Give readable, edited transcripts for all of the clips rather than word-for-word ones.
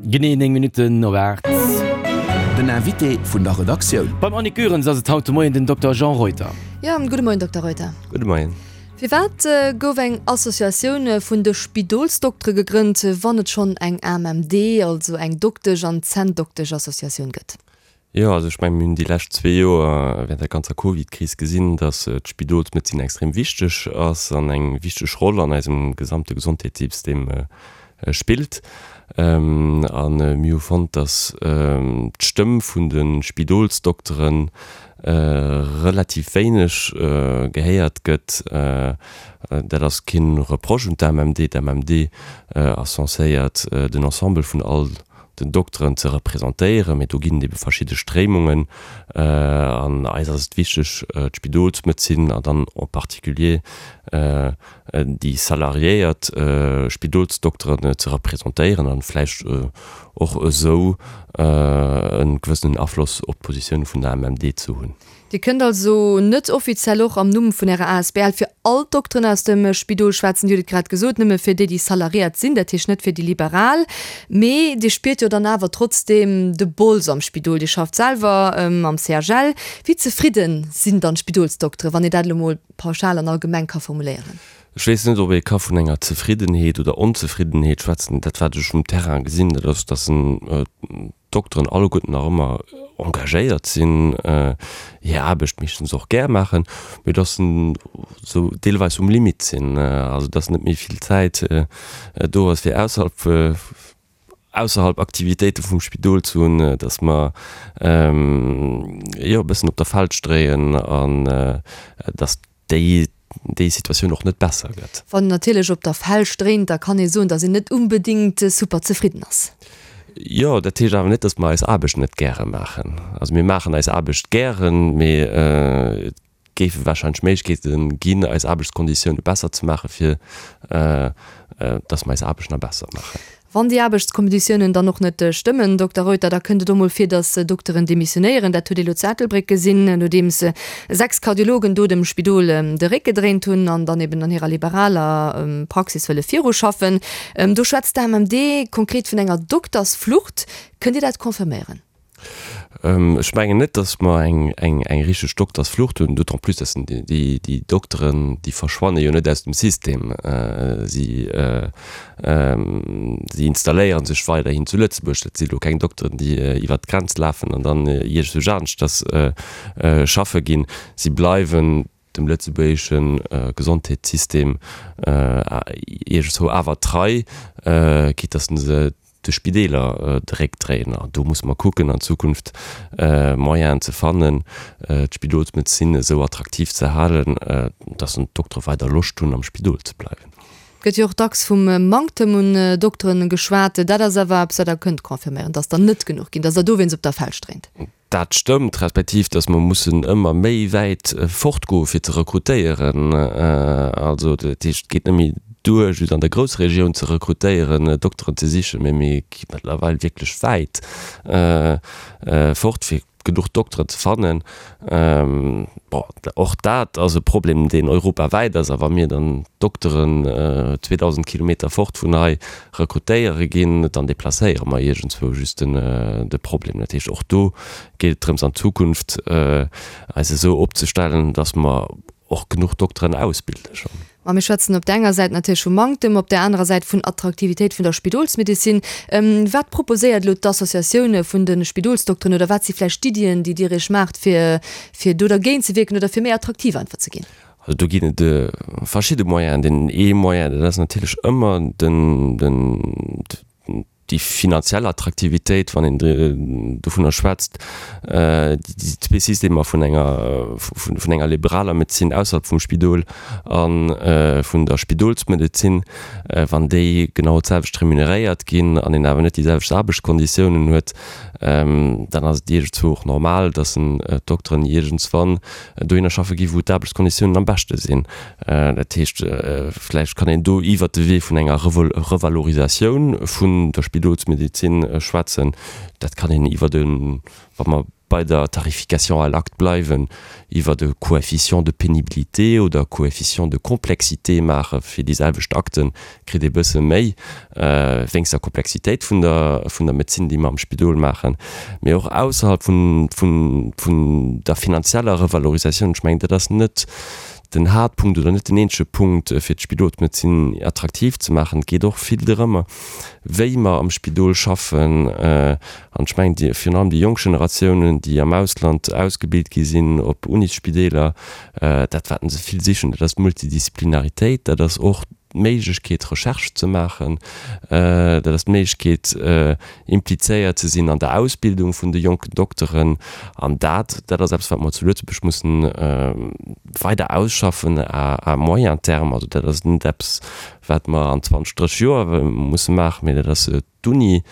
Genee 9 Minutten op 8. Den Invité vun der Redaktioun. Beim Annick Goerens ass et haut de Moien den Dokter Jean Reuter. Jo, gudde Moien, Dokter Reuter. Gudde Moien. Firwat gouf eng Associatioun vun de Spidolsdoktere gegrënnt, wann et schonn eng AMMD, also eng Doktesch an Zänndoktesch-Associatioun gëtt? Jo, also ech mengen, mir hunn déi lescht zwee Joer während der ganzer Covid-Kris gesinn, dass d'Spidolsmedezin extrem wichteg ass an eng wichteg Roll an eisem gesamte Gesondheetssystem spillt. A mir hu fonnt, dass d'Stëmm vun de Spidolsdokteren relativ wéineg gehéiert gëtt. Dat ass kee Reproche un d'AMMD. D'AMMD ass censéiert, den Ensemble vun all den Dokteren ze representéieren, mee do ginn et ebe verschidde Stréimungen an eis ass et wichteg, d'Spidolsmedezin an dann en particulier déi salariéiert Spidolsdokteren ze representéieren an vläicht och esou e gewëssenen Afloss op d'Positioun vun der MMD ze hunn. Dir kënnt also net offiziell och am Numm vun Ärer asbl fir all d'Dokteren aus dem Spidol schwätzen, Dir hutt et grad gesot, nëmme fir déi, déi salariéiert sinn, dat heescht net fir déi Liberal. Mee Dir spiert jo dann awer trotzdeem de Bols am Spidol. Dir schafft selwer am CHL. Wéi zefridde sinn dann d'Spidolsdokteren, wann een dat elo mol pauschal an allgemeng ka formuléieren? Ech weess net, ob ee ka vun enger Zefriddenheet oder Onzefriddenheet schwätzen. Dat, wat ech um Terrain gesinn, dat ass, dass en d'Dokteren alleguerten nach ëmmer engagéiert sinn, hir Aarbecht meeschtens och gär maachen, mee dass se sou deelweis um Limit sinn, also dass net méi vill Zäit do ass fir ausserhalb ausserhalb Aktivitéite vum Spidol ze hunn, dass mer jo e bëssen op der Felsch dréien an dass déi déi Situatioun och net besser gëtt. Wann een natierlech op der Felsch dréint, da kann ee soen, datt een net unbedéngt super zefridden ass. Jo, dat heescht awer net, datt mer eis Aarbecht net gäre maachen. Also mir maachen eis Aarbecht gären, mee et géife warscheinlech Méiglechkeete ginn, eis Aarbechtskonditioune besser ze maachen, fir datt mer eis Aarbecht nach besser maachen. Wann déi Aarbechtskonditiounen dann och net stëmmen, Dokter Reuter, da kënnt et och mol vir, datt Dokteren demissionéieren. Dat huet ee lo zu Ettelbréck gesinn, nodeems 6 Kardiologen do dem Spidol de Réck gedréint hunn an dann eben an hirer liberaler Praxis wëlle viruschaffen. Do schwätzt d'AMMD konkret vun enger Doktersflucht. Kënnt Dir dat confirméieren? Ech mengen net, datt mer eng richteg Doktersflucht hunn, d'autant plus, datt déi Dokteren, déi verschwanne jo net aus dem System. Si installéiere sech weiderhin zu Lëtzebuerg. Dat si lo keng Dokteren, déi iwwert d'Grenz lafen an dann iergendwou aneschters schaffe ginn. Si bleiwen dem lëtzebuergesche Gesondheetssystem iergendzwou awer trei, quitte datt se de Spideeler de Réck dréien. An do musse mer kucken an Zukunft Moyenen ze fannen, d'Spidolsmedezin esou attraktiv ze halen, datt d'Doktere weider Loscht hunn am Spidol ze bleiwen. Et gëtt jo och dacks vum Manktem un Dokteren geschwat. Dat ass awer eppes, wat Der kënnt confirméieren, datt der net genuch ginn, datt Der dowéinst op der Felsch dréint. Dat stëmmt, respektiv datt mer mussen ëmmer méi wäit fortgoe fir ze rekrutéieren. Also dat heescht, et geet net méi duer just an der Groussregioun ze rekrutéieren, Dokteren ze sichen, mee mir gi mëttlerweil wierklech wäit fort fir genuch Dokteren ze fannen. Bon, och dat ass e Problem, deen europawäit ass. A wa mir dann Dokteren 2.000 Kilometer fort vun hei rekrutéiere ginn, dann deplacéiere mer iergendzwou just de Problem. Dat heescht, och do geet et drëms an Zukunft eis esou opzestellen, datt mer och genuch Dokteren ausbilde schonn. Ma mir schwätzen op där enger Säit natierlech vu Manktem, op där anerer Säit vun Attraktivitéit vun der Spidolsmedezin. Wat proposéiert elo d'Associatioun vun de Spidolsdokteren oder wat si vläicht d'Iddien, déi Dir Iech maacht, fir fir do dergéint ze wierken oder fir méi attraktiv einfach ze ginn? Also do ginn et verschidde Moyenen. Deen ee Moyen, dat ass natierlech ëmmer den, den, déi finanziell Attraktivitéit, wann een dovunner schwätzt, déi zwee Systemer vun enger, vun enger liberaler Medezin ausserhalb vum Spidol a vun der Spidolsmedezin, wann déi genau d'selwecht remuneréiert ginn an een awer net déi selwecht Aarbechtskonditiounen huet, dann ass et iergendzwou och normal, dass d'Dokteren iergendswann dohinner schaffe gi wou d'Aarbechtskonditiounen am beschte sinn. Dat heescht, vläicht kann een do iwwert de Wee vun enger Revalorisatioun vun der Spidolsmedezin schwätzen. Dat kann een iwwert e, wa mer. bei der Tarification à l'acte bleiwen, iwwert e Coefficient de pénibilité oder e Coefficient de complexité maache fir déi selwecht Akten, kritt ee bësse méi wéinst der Komplexitéit vun der vun der Medezin, déi mer am Spidol maachen, mee och ausserhalb vun vun vun der finanzieller Revalorisatioun. Ech mengen, dat ass net den Haaptpunkt oder net den eenzege Punkt, fir d'Spidolsmedezin attraktiv ze maachen. Et geet och vill drëmmer, wéi mer am Spidol schaffen. An ech mengen, déi, virun allem déi jonk Generatiounen, déi am Ausland ausgebilt gi sinn op Unisspideeler, dat wat se vill sichen, dat ass d'Multidisziplinaritéit, dat ass och d'Méiglechkeet Recherche ze maachen, dat ass d'Méiglechkeet implizéiert ze sinn an der Ausbildung vun de jonken Dokteren. An dat, dat ass eppes wat mer zu Lëtzebuerg mussen weider ausschaffen à moyen terme. Also dat ass net eppes wat mer an 20, 30 Joer musse maachen, mee dat ass d'Uni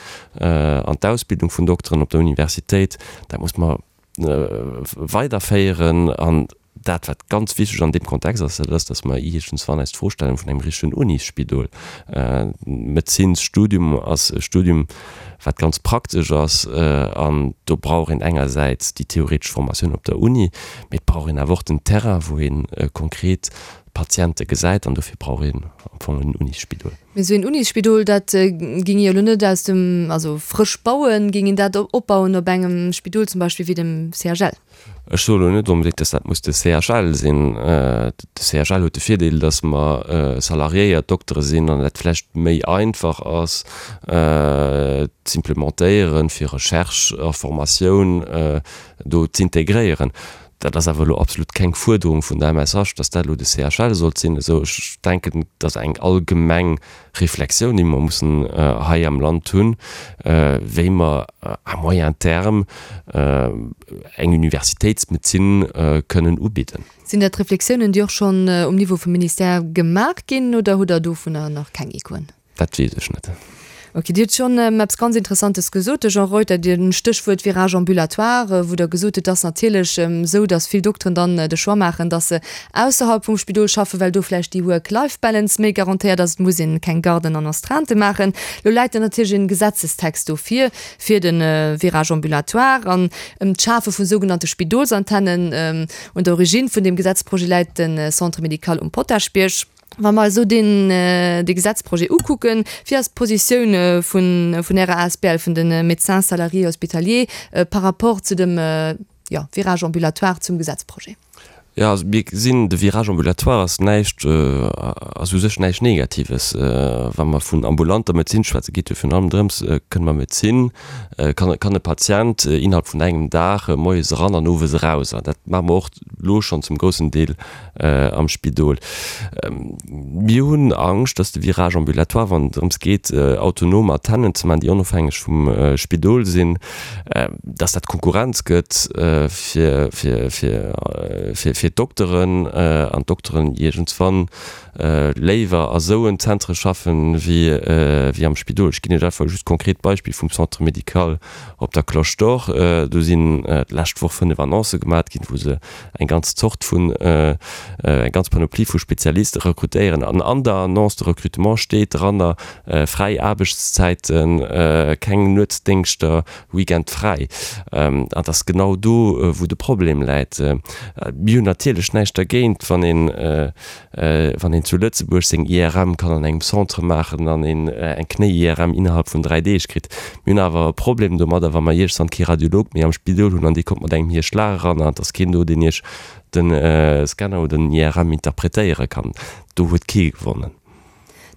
an d'Ausbildung vun Dokteren op der Universitéit, dat muss mer weiderféieren. An dat, wat ganz wichteg an deem Kontext ass, dat ass, dass mer iergendswann eis d'Fro stellen vun engem richtegen Unisspidol. Medezinsstudium ass e Studium, wat ganz praktesch ass, an do brauch een engersäits déi theoretesch Formatioun op der Uni, mee et brauch een awer och den Terrain, wou ee konkret d'Patiente gesäit, an dofir brauch een am Fong en Unisspidol. Mee esou een Unisspidol, dat géing ee jo elo net aus dem, also frësch bauen, géing een dat opbauen op engem Spidol zum Beispill wéi dem CHL? Ech soe elo net onbedéngt, dass dat muss de CHL sinn. De CHL huet de Virdeel, dass mer salariéiert Doktere sinn an dat vläicht méi einfach ass z'implementéieren, fir Recherche a Formatioun do z'integréieren. Dat ass awer elo absolut keng Fuerderung vun der MSH, dass dat elo de CHL sollt sinn. Esou, ech denken, et ass eng allgemeng Reflexioun, déi mer mussen hei am Land hunn, wéi mer à moyen terme eng Universitéitsmedezin kënnen ubidden. Sinn dat Reflexiounen, déi och schonn um Niveau vum Ministère gemaach ginn, oder hutt Der dovunner nach keng Echoen? Dat weess ech net. Ok, Dir hutt schonn eppes ganz Interessantes gesot, de Jean Reuter, Dir Stéchwuert Virage ambulatoire, wou Der gesot hutt, et ass natierlech esou, datt vill Dokteren dann de Choix maachen, datt se ausserhalb vum Spidol schaffen, well do vläicht déi Work-Life-Balance méi garantéiert ass, et muss een keng Garden an Astreintë maachen. Elo läit dann natierlech en Gesetzestext do vir, fir de Virage ambulatoire an ëm d'Schafe vu sougenannte Spidolsantennen. Un der Origine vun deem Gesetzprojet läit de Centre médical um Potaschbierg. Wa mer esou deen, dee Gesetzprojet ukucken, wéi ass d'Positioun vun, vun Ärer asbl, vun de Médecins salariés hospitaliers par rapport zu dem, jo, Virage ambulatoire, zum Gesetzprojet? Jo, also mir gesinn, de Virage ambulatoire ass näischt, ass u sech näischt Negatives. Wa mer vun ambulanter Medezin schwätzen, geet jo virun allem drëms, kënne mer Medezin, kann, kann e Patient innerhalb vun engem Dag moies eran an owes eraus. An dat maache mer och elo schonn zum groussen Deel am Spidol. Mir hunn Angscht, dass de Virage ambulatoire, wann et drëms geet, autonom Antennen ze maachen, déi onofhängeg vum Spidol sinn, dass dat Konkurrenz gëtt fir d'Dokteren an d'Dokteren iergendswann léiwer a sou en Zentre schaffen, wéi am Spidol. Ech ginn Iech einfach just konkret d'Beispill vum Centre médical op der Cloche d'Or. Do sinn d'lescht Woch 5 Annoncë gemat ginn, wou se eng ganz Zort vun, eng ganz Panoplie vu Spezialiste rekrutéieren. An an der Annonce de recrutement steet dranner, fräi Aarbechtszäiten, keng Nuetsdéngschter, Weekend fräi. An et ass genau do, wou de Problem läit. Mir hunn natierlech näischt dergéint, wann een, wann een zu Lëtzebuerg seng IRM kann an engem Centre maachen an een eng Knéi-IRM innerhalb vun 3 Deeg kritt. Mir hunn awer e Problem domadder, wa mer iergsann kee Radiolog méi am Spidol hunn an dee kommt mat engem hir Schlag eran an et ass keen do, deen iech de Scanner oder den IRM interpretéiere kann. Do huet kee gewonnen.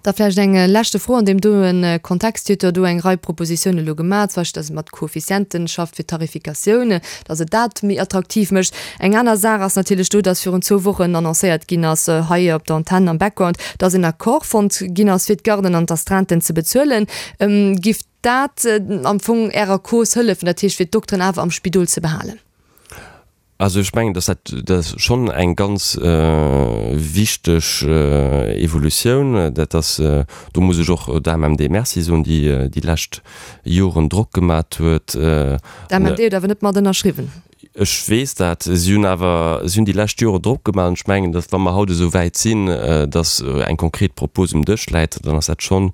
Da vläicht eng leschte Fro an deem doen Kontext. Dir hutt jo do eng Rei Propositiounen elo gemaach, zum Beispill, dass et mat Koeffizienten schafft fir d'Tarifikatioun, dass et dat méi attraktiv mécht. Eng aner Saach ass natierlech do, dass virun zwou Wochen annoncéiert ginn ass, hei op der Antenn am Background, dass en Accord fonnt ginn ass, fir d'Garden an d'Astreinten ze bezuelen. Giff dat am Fong Ärer Cause hëllefen, dat heescht fir d'Dokteren awer am Spidol ze behalen? Also ech mengen, dass dat dat ass schonn eng ganz wichteg Evolutioun. Dat ass, do muss ech och der AMMD Merci soen, déi déi lescht Joren Drock gemat huet. D'AMMD huet awer net mat ënnerschriwwen. Ech weess dat. Si hunn awer, si hunn déi lescht Jore Drock gemaach an ech mengen, datt wa mer haut esou wäit sinn, datt eng konkret Propos um Dësch läit, dann ass dat schonn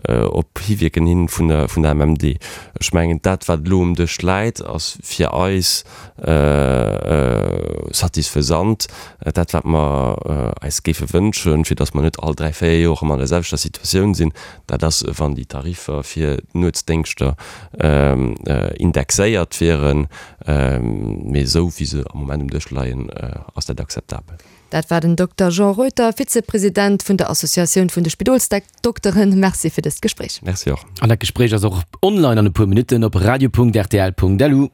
op Hiwierken hin vun der, vun der MMD. Ech mengen, dat wat elo um Dësch läit, ass fir eis satisfaisant. Dat wat mer eis géife wënschen, fir datt mer net all dräi, véier Joer erëm an der selwechter Situatioun sinn, Dat ass, wann déi Tariffer fir d'Nuetsdéngschter indexéiert wieren. Mee esou wéi se am Moment um Dësch leien, ass dat akzeptabel. Dat war den Dokter Jean Reuter, Vizepresident vun der Associatioun vun de Spidolsdokteren. Merci fir dëst Gespréich. Merci och. An dat Gespréich ass och online an e puer Minutten op radio.rtl.lu.